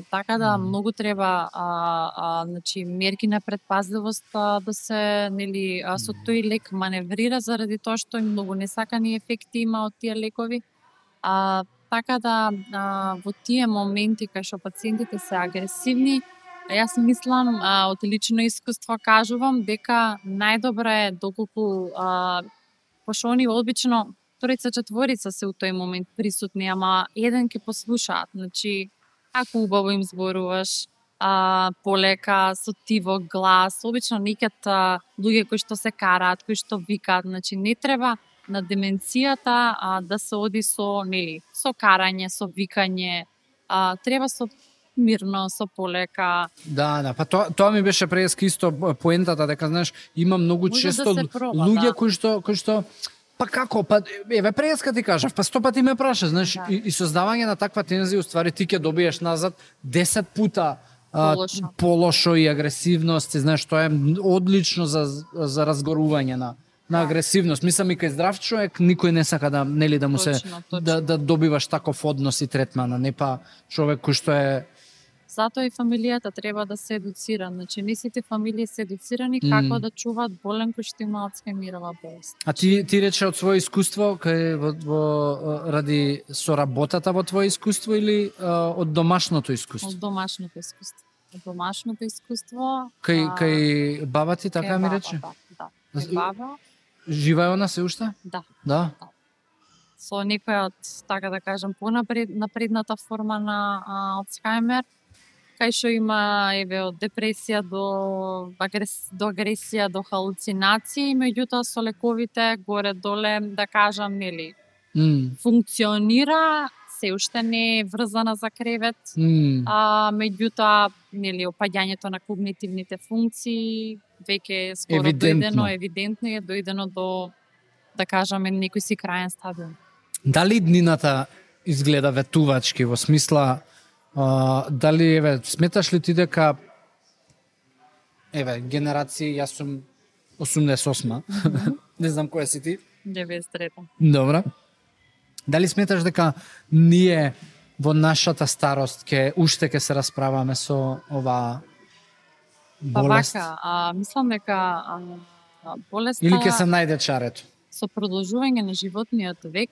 така да многу треба значи мерки на предпазливост да се, нели, со тој лек маневрира заради тоа што многу несакани ефекти има од тие лекови. Така да во тие моменти кај што пациентите се агресивни, јас мислам, од лично искуство кажувам дека најдобро е доколку пошто они обично 3-4 се у тој момент присутни, ама еден ќе послушаат, значи ако убаво им зборуваш, полека, со тивок глас, обично некад луѓе кои што се караат, кои што викаат, значи не треба на деменцијата да се оди со, нели, со карање, со викање, треба со мирно, со полека. Да, па тоа ми беше преска исто поентата, дека, знаеш, има многу често луѓе кои што па како, па еве преска ти кажав, па 100 пати ме праша, знаеш, и создавање на таква тензија, уствари ти ќе добиеш назад 10 пута полошо и агресивност, и знаеш, тоа е одлично за разгорување на агресивност. Мислам, и кај здрав човек никој не сака да, нели, да му се да добиваш таков однос и третман, а не па човек кој што е. Затоа и фамилијата треба да се едуцира. Значи, не сите фамилии се едуцирани како да чуваат болен кој што има Алцхаймерова болест. А ти рече од свое искуство, ради соработата во твое искуство или од домашното искуство? Од домашното искуство. Од домашното искуство. Кај баба ти така ми рече? Да. Кај баба. Жива е она се уште? Да. Со некоја од, така да кажам, напредната форма на Алцхаймер, кај што има, еве, од депресија до агресија, до халуцинации, меѓутоа со лековите горе-доле, да кажам, нели, функционира, се уште не е врзана за кревет, меѓутоа, нели, опаѓањето на когнитивните функции веќе скоро евидентно е дојдено до, да кажаме, некој си крајен стадиум. Дали днината изгледа ветувачки, во смисла, дали, еве, сметаш ли ти дека, еве, генерација, јас сум 88, не знам која си ти? 93-та. Добра. Дали сметаш дека ние во нашата старост уште ќе се расправаме со оваа болест? Па вака, мислам дека болеста... Или ќе се најде чарето? Со продолжување на животниот век,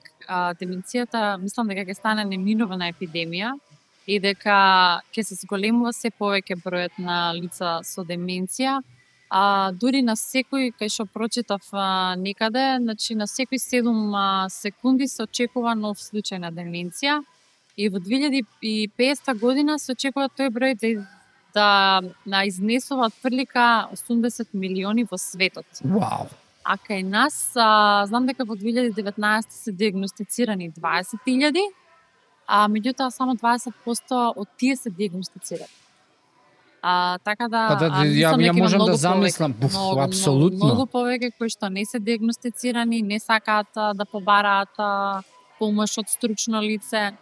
деменцијата, мислам дека ќе стане неминувана епидемија и дека ќе се зголемува се повеќе бројот на лица со деменција, дури на секој, кај што прочитав некаде, значи на секои 7 секунди се очекува нов случај на деменција и во 2050 година се очекува тој број да изнесува отприлика 80 милиони во светот. Вау! А кај нас, знам дека во 2019 се диагностицирани 20.000, меѓутоа само 20% од тие се диагностицирани. Така да, ја можам да замислам, апсолутно. Многу повеќе кои што не се диагностицирани, не сакаат да побараат помош од стручно лице.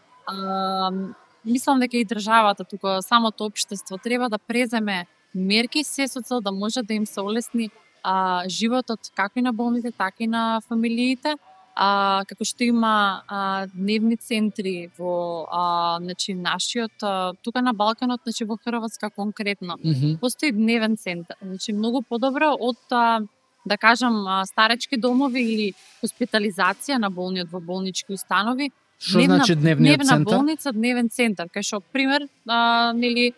Мислам дека и државата, тука самото општество треба да преземе мерки се со цел да може да им се олесни животот како и на болните, така и на фамилиите, како што има дневни центри во значи нашиот тука на Балканот, значи во Хрватска конкретно. Постои дневен центар, значи многу подобро од да кажам старечки домови или хоспитализација на болниот во болнички установи. Што значи дневниот центар? Дневна болница, дневен центар, кај што пример нели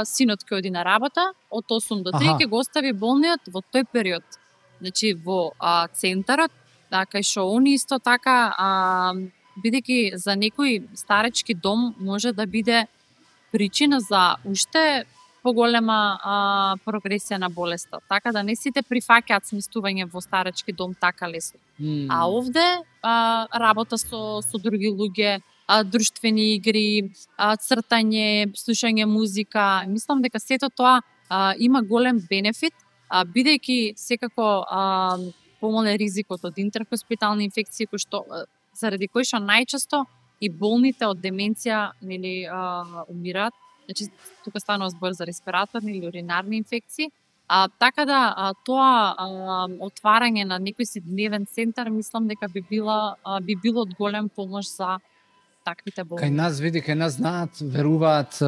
синот ќе оди на работа од 8 до 3 ќе го остави болниот во тој период. Значи во центарот, кај што они исто така бидејќи за некој старечки дом може да биде причина за уште поголема прогресија на болеста. Така да не сите прифаќаат сместување во старечки дом така лесно. А овде работа со други луѓе, друштвени игри, цртање, слушање музика. Мислам дека сето тоа има голем бенефит, бидејќи секако помале ризикот од интерхоспитални инфекции, кои што заради кои што најчесто и болните од деменција нели умираат. Значи тука станува збор за респираторни или уринарни инфекции. Така да тоа отварање на некој си дневен центар мислам дека би било од голем помош за таквите болни. Кај нас знаат, веруваат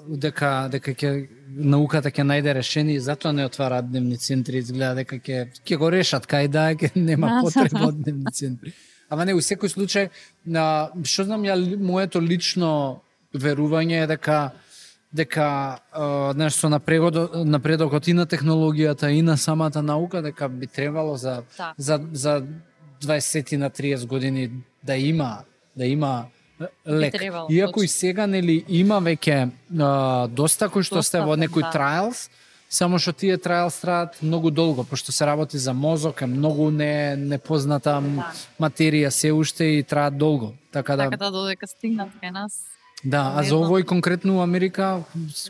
дека ќе науката ќе најде решение и затоа не отвараат дневни центри, изгледа дека ќе го решат кај ќе нема потреба од дневни центри. Ама не, у секој случај, што знам ја моето лично верување е дека нешто напредокот и на технологијата и на самата наука дека би требало за 20 на 30 години да има лек. Иако и сега нели има веќе доста кои што сте во некои трајлс, само што тие трајлс траат многу долго, пошто се работи за мозок, е многу непозната материја се уште и траат долго. Така да додека стигнат кај нас. Да, а за овој конкретно у Америка,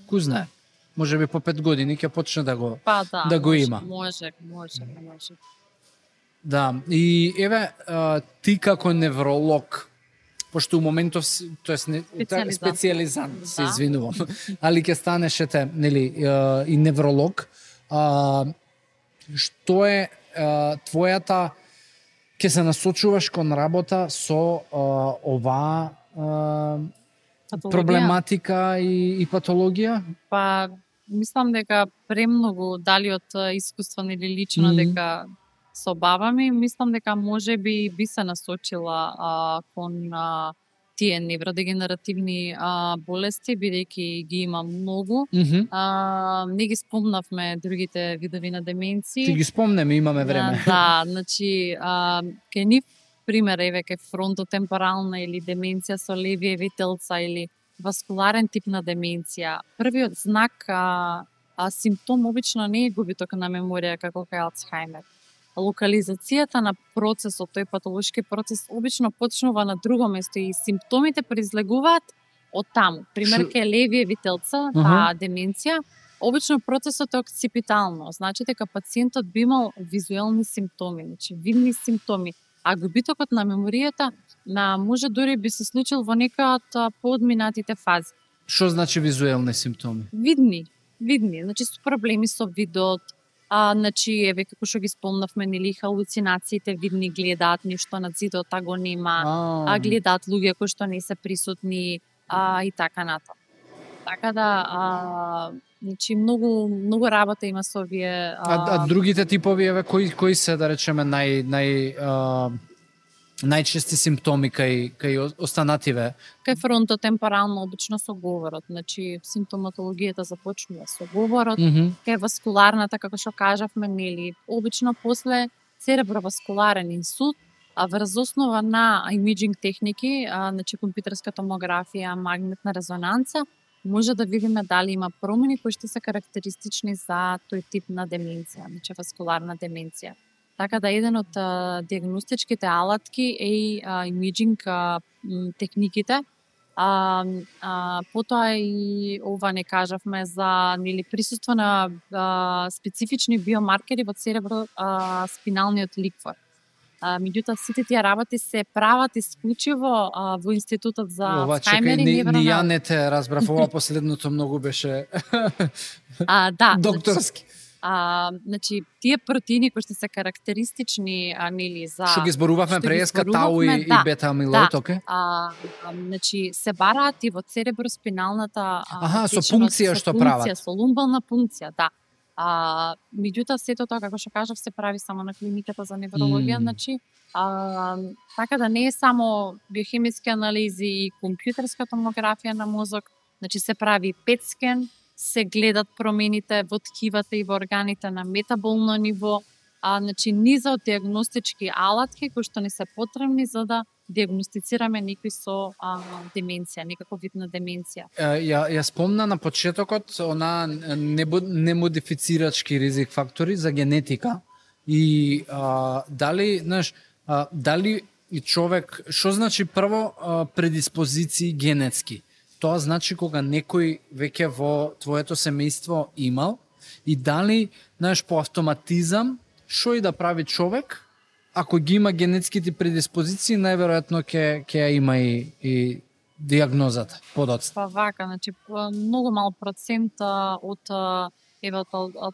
ку знае, може би по 5 години ќе почне да го има. Може. Да, и еве, ти како невролог, пошто у моментов, специјализант, се извинувам, али ќе станешете, нели, и невролог, што е твојата, ќе се насочуваш кон работа со оваа проблематика и патологија? Па, мислам дека премногу, дали од искуство или лично, дека со баба ми, мислам дека може би се насочила кон тие невродегенеративни болести, бидејќи ги има многу. Не ги спомнавме другите видови на деменции. Ти ги спомнеме, имаме време. Да, значи, кај нив пример, еве кај фронтотемпорална или деменција со левиеви телца или васкуларен тип на деменција. Првиот знак, симптом обично не е губиток на меморија како кај Алцхаймер. Локализацијата на процесот, тој патолошки процес, обично почнува на друго место и симптомите произлегуваат од таму. Пример, кај левиеви телца, таа деменција, обично процесот е окципитално, значи дека пациентот би имал визуелни симптоми, значи видни симптоми. А губитокот на меморијата може дури би се случил во некоја од поодминатите фази. Што значи визуелни симптоми? Видни, значи со проблеми со видот, значи еве како што ги спомнавме, нели халуцинациите видни, гледаат нешто на зидот, а го нема, гледаат луѓе кои што не се присутни и така натаму. Така да значи многу работа има со овие другите типови, еве кои се, да речеме, најчести симптоми кај останативе? Кај фронтотемпорално обично со говорот, значи симптоматологијата започнува со говорот, кај васкуларната, како што кажавме, нели, обично после цереброваскуларен инсулт, врз основа на имиджинг техники, значи компјутерска томографија, магнетна резонанца, може да видиме дали има промени кои што се карактеристични за тој тип на деменција, значи васкуларна деменција. Така да еден од диагностичките алатки е и имиджинг техниките. Потоа и ова не кажавме за присуство на специфични биомаркери во церебро-спиналниот ликвор. Меѓутоа сите тие работи се прават исклучиво во Институтот за Алцхаймер и невронал. Ни ја не те разбрав, ова последното многу беше докторски. Значи, тие протеини кои што се карактеристични нели за Што ги зборувавме што ги преска тау зборувавме, и бета амилоид, оке? Значи се бараат и во цереброспиналната Со течност, пункција што прават. Со лумбална пункција, да. Меѓутоа сето тоа како што кажав се прави само на клиниката за неврологија, значи така да не е само биохемиски анализи и компјутерска томографија на мозок, значи се прави PET скен, се гледат промените во ткивата и во органите на метаболно ниво, значи низа од диагностички алатки кои што ни се потребни за да диагностицираме некој со деменција, некаков вид на деменција. Ја спомна на почетокот она немодифицирачки ризик фактори за генетика и дали, знаеш, дали и човек, што значи прво предиспозиции генетски? Тоа значи кога некој веќе во твоето семејство имал и дали, знаеш, по автоматизам што и да прави човек, ако ги има генетските предиспозиции, најверојатно ќе ја има и диагнозата подоцна. Па вака, значи многу мал процент од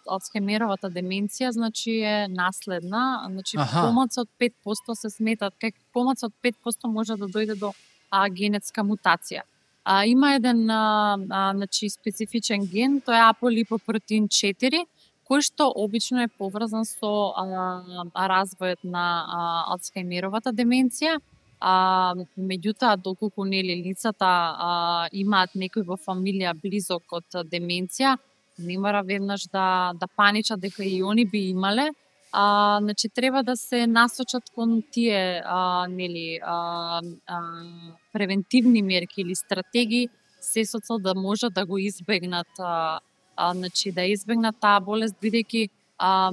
Алцхаймеровата деменција, значи е наследна, значи помалку од 5% се сметат, помалку од 5% може да дојде до генетска мутација. Има еден значи специфичен ген, тоа е аполипопротеин 4, кој што обично е поврзан со развојот на Алцхаймеровата деменција. Меѓутоа, доколку нели лицата имаат некој во фамилија близок од деменција, не мора веднаш да паничат дека и они би имале. Значи треба да се насочат кон тие нели превентивни мерки или стратегии се со цел да можат да го избегнат значи да избегнат таа болест, бидејќи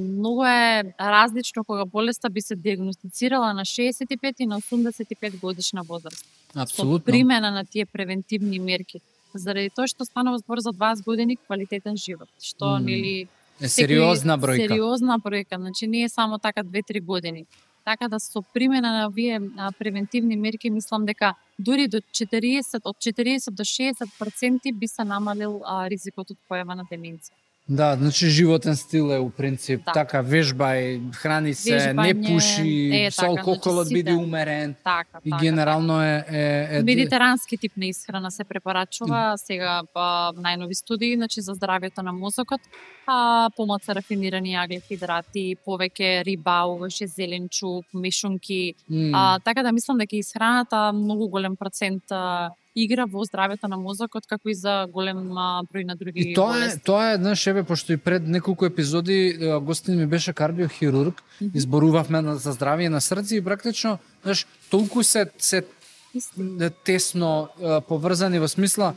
многу е различно кога болеста би се диагностицирала на 65 и на 85 годишна возраст. Апсолутно. Со примена на тие превентивни мерки. Заради тоа што станува збор за 20 години квалитетен живот, што нели е сериозна бројка. Сериозна бројка, значи не е само така 2-3 години. Така да со примена на овие превентивни мерки мислам дека дури до 40 до 60% би се намалил ризикот од појава на деменција. Да, значи животен стил е у принцип така, вежбај, храни се, не пуши, со алкохолот биде умерен. Така, и генерално е медитерански тип на исхрана се препорачува сега најнови студии, значи за здравјето на мозокот, помалку рафинирани аглихидрати, повеќе риба, овоше зеленчук, мешунки. Така да мислам дека исхраната многу голем процент игра во здравјето на мозокот, како и за голем број на други болести. Тоа е, знаеш, еве, пошто и пред неколку епизоди гостин ми беше кардиохирург, изборувавме за здравје на срце и практично, знаеш, толку се тесно поврзани во смисла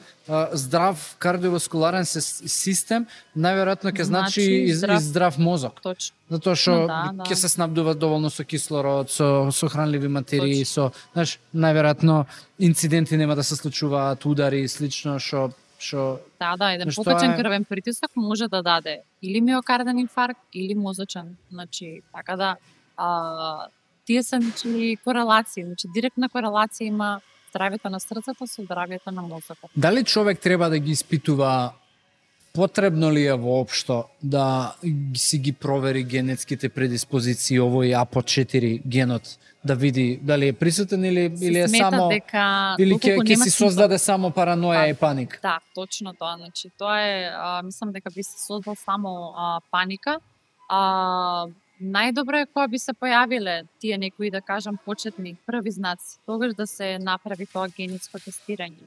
здрав кардиоваскуларен систем, најверојатно ќе значи и здрав мозок. Точно. Затоа што ќе се снабдува доволно со кислород, со хранливи материи, знаеш, најверојатно инциденти нема да се случуваат, удари и слично што еден покачен крвен притисок може да даде или миокарден инфаркт или мозочен. Значи, така да тие се корелации, значи директна корелација има здравјето на срцето со здравјето на мозокот. Дали човек треба да ги испитува, потребно ли е воопшто да си ги провери генетските предиспозиции, овој APO4 генот, да види дали е присутен или е само или ќе си создаде само параноја и паника? Да, точно тоа, значи тоа е мислам дека би се создал само паника. Најдобро е кога би се појавиле тие некои, да кажам, почетни први знаци, тогаш да се направи тоа генетско тестирање.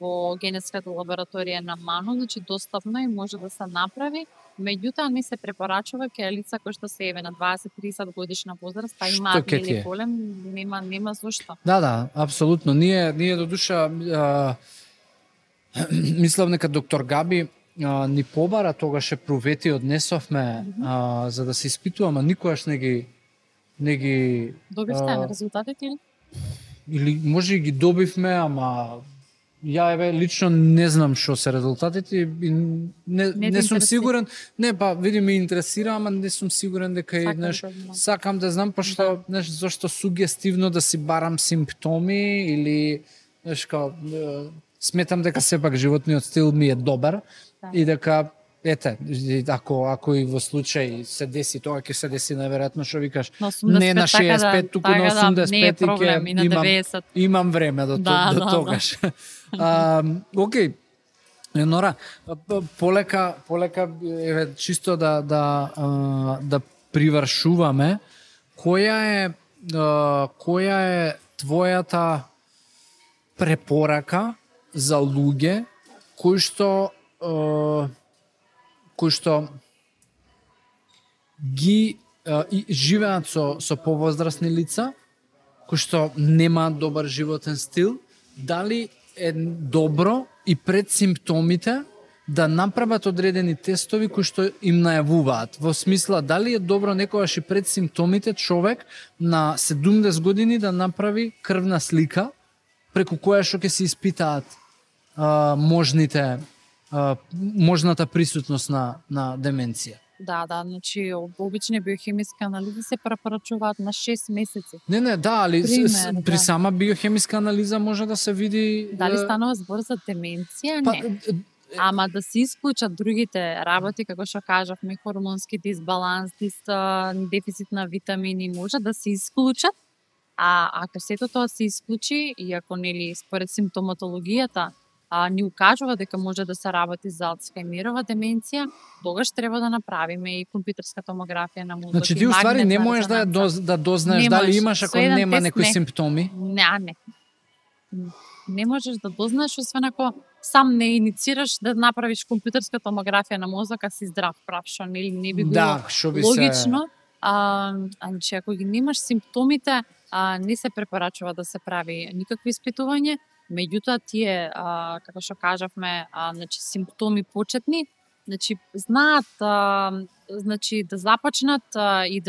Во генетската лабораторија на МАНО, значи достапно и може да се направи, меѓутоа не се препорачува кај лица кои што се еве на 20-30 годишна возраст, имаат или голем, нема зошто. Да, апсолутно. Ние до душа мислам дека доктор Габи ни побара, тогаш провети однесовме за да се испитуваме, никогаш не ги добивте резултатите или може и ги добивме, ама ја еве лично не знам што се резултатите и не сум сигурен. Не, па види ме интересира, ама не сум сигурен дека сакам да знам, пошто зашто сугестивно да си барам симптоми или сметам дека сепак животниот стил ми е добар и дека ете, ако и во случај се деси тоа, ќе се деси најверојатно што викаш, На 85, не на 65, туку на 85 не е проблем, и на 90. Имам време до тогаш. Окей. Нора, полека еве чисто да привршуваме, која е твојата препорака за луѓе кои што ги живеат со повозрасни лица, кои што немаат добар животен стил, дали е добро и пред симптомите да направат одредени тестови кои што им најавуваат. Во смисла, дали е добро некогаш и пред симптомите човек на 70 години да направи крвна слика преку која што ќе се испитаат можната присутност на деменција. Да, значи обични биохемиски анализи се препорачуваат на 6 месеци. Не, али при сама биохемиска анализа може да се види дали станува збор за деменција, не. Ама да се исклучат другите работи, како што кажавме, хормонски дисбаланс, дефицит на витамини, може да се исклучат. А ако сето тоа се исклучи и ако нели според симптоматологијата ни укажува дека може да се работи за Алцхаймерова деменција, тогаш треба да направиме и компјутерска томографија на мозок. Значи ти уствари не можеш да дознаеш дали имаш ако нема некои симптоми? Не. Не можеш да дознаеш освен ако сам не иницираш да направиш компјутерска томографија на мозок, а си здрав прав, што не би било логично. Значи ако ги немаш симптомите, не се препорачува да се прави никакви испитување. Меѓутоа тие, како што кажавме, значи симптоми почетни, значи знаат значи да започнат и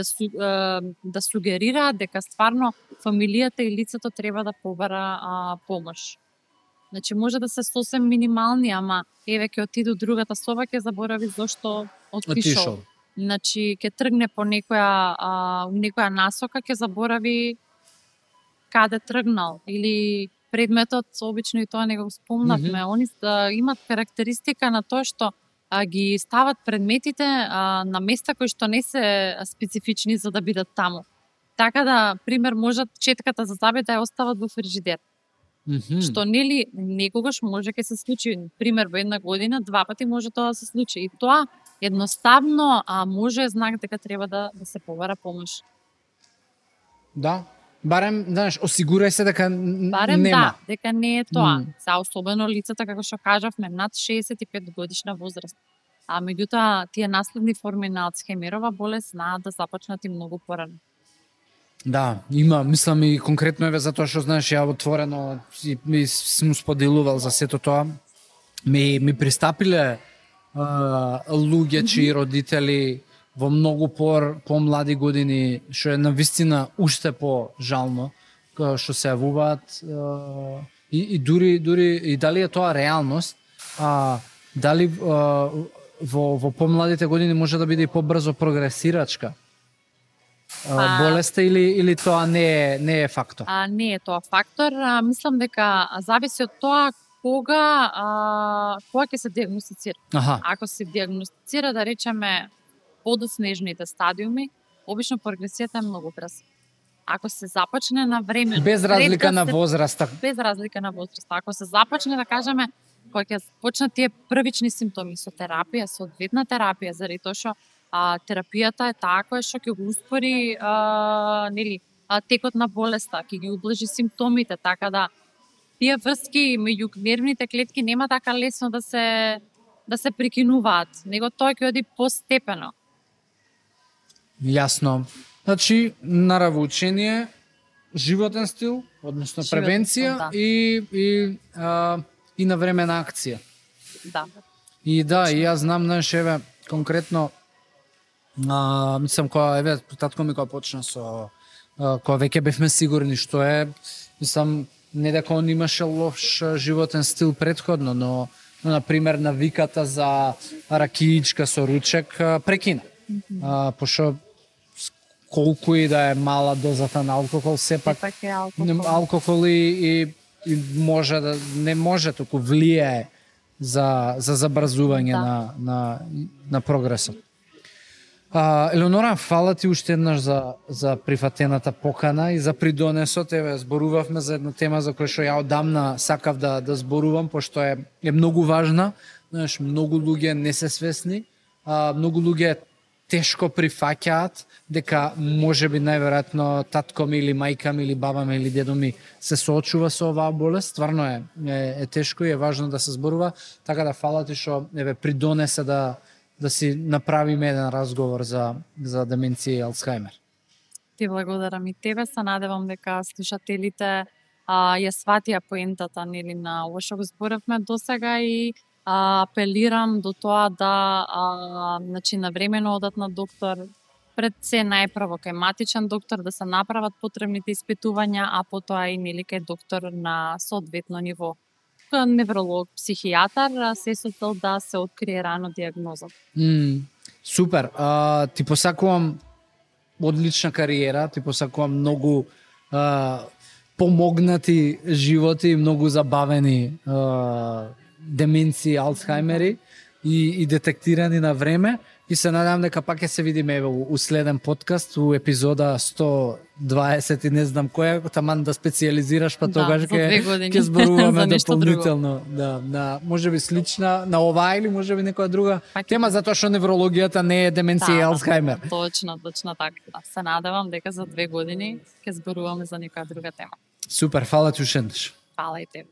да сугерираат дека стварно фамилијата и лицето треба да побара помош. Значи може да се сосем минимални, ама еве ќе отиде другата соба, ќе заборави зошто отишол. Значи ќе тргне по некоја насока, ќе заборави каде тргнал или предметот, обично и тоа не го спомнавме, они имат карактеристика на тоа што ги стават предметите на места кои што не се специфични за да бидат таму. Така да, пример, можат четката за зъби да ја остават во фрижидер. Што нели некогаш може ќе се случи, пример во една година, 2 пати може тоа да се случи. И тоа едноставно може знак дека треба да се побара помош. Да. Барем, знаеш, осигурај се дека барем нема. Дека не е тоа. За особено лицата, како што кажавме, над 65 годишна возраст. А меѓутоа, тие наследни форми на Алцхаймерова болест знаат да започнат и многу порано. Да, има, мислам и конкретно еве затоа што знаеш ја отворено и сум споделувал за сето тоа. Ми пристапиле луѓе чии родители во многу помлади години, што е навистина уште по-жално, што се јавуваат и дури и дали е тоа реалност, дали во помладите години може да биде и побрзо прогресирачка болеста или тоа не е фактор? Не е тоа фактор. Мислам дека зависи од тоа кога ќе се диагностицира. Ако се диагностицира, да речеме, подоснежните стадиуми, обично прогресијата е многу брза. Ако се започне на време, без разлика на возраста. Без разлика на возраста. Ако се започне, да кажеме, кога ќе почнат тие првични симптоми со терапија, со одветна терапија, заради тоа што терапијата е таа која што ќе го успори текот на болеста, ќе ги ублажи симптомите, така да тие врски меѓу нервните клетки нема така лесно да се прекинуваат, него тоа ќе оди постепено. Јасно. Значи, наравно учение, животен стил, односно превенција и навремена акција. Да. И јас знам, знаеш, еве, конкретно, мислам, кога, татко ми кога почна кога веќе бевме сигурни што е, мислам, не дека он имаше лош животен стил предходно, но например, навиката за ракиичка со ручек прекина. Пошто колку и да е мала дозата на алкохол, сепак алкохол и може да не може, туку влијае за забрзување на прогресот. Елеонора, фала ти уште еднаш за прифатената покана и за придонесот. Еве, зборувавме за една тема за која што ја одамна сакав да зборувам, пошто е многу важна. Знаеш, многу луѓе не се свесни, многу луѓе тешко прифаќаат дека можеби најверојатно татко ми или мајка ми или баба ми или дедо ми се соочува со оваа болест. Стварно е тешко и е важно да се зборува, така да фала ти што еве придонесе да си направиме еден разговор за деменција и Алцхајмер. Ти благодарам и тебе, се надевам дека слушателите ја сватија поентата нели на ова што го зборавме досега и апелирам до тоа да значи навремено одат на доктор, пред се најпрво кај матичен доктор да се направат потребните испитувања, а потоа и нели кај доктор на соодветно ниво. Невролог, психијатар, се со цел да се открие рано дијагноза. Супер. Ти посакувам одлична кариера, ти посакувам многу помогнати животи, многу забавени деменции, Алцхајмери и детектирани на време. И се надам дека пак ќе се видиме у следен подкаст, у епизода 120 и не знам која, таман да специализираш, па тогаш ќе зборуваме дополнително. Да, можеби слична на оваа или можеби некоја друга тема, затоа што неврологијата не е деменција и Алцхајмер. Точно така. Се надевам дека за 2 години ќе зборуваме за некоја друга тема. Супер, фала ти уште еднаш. Фала и тебе.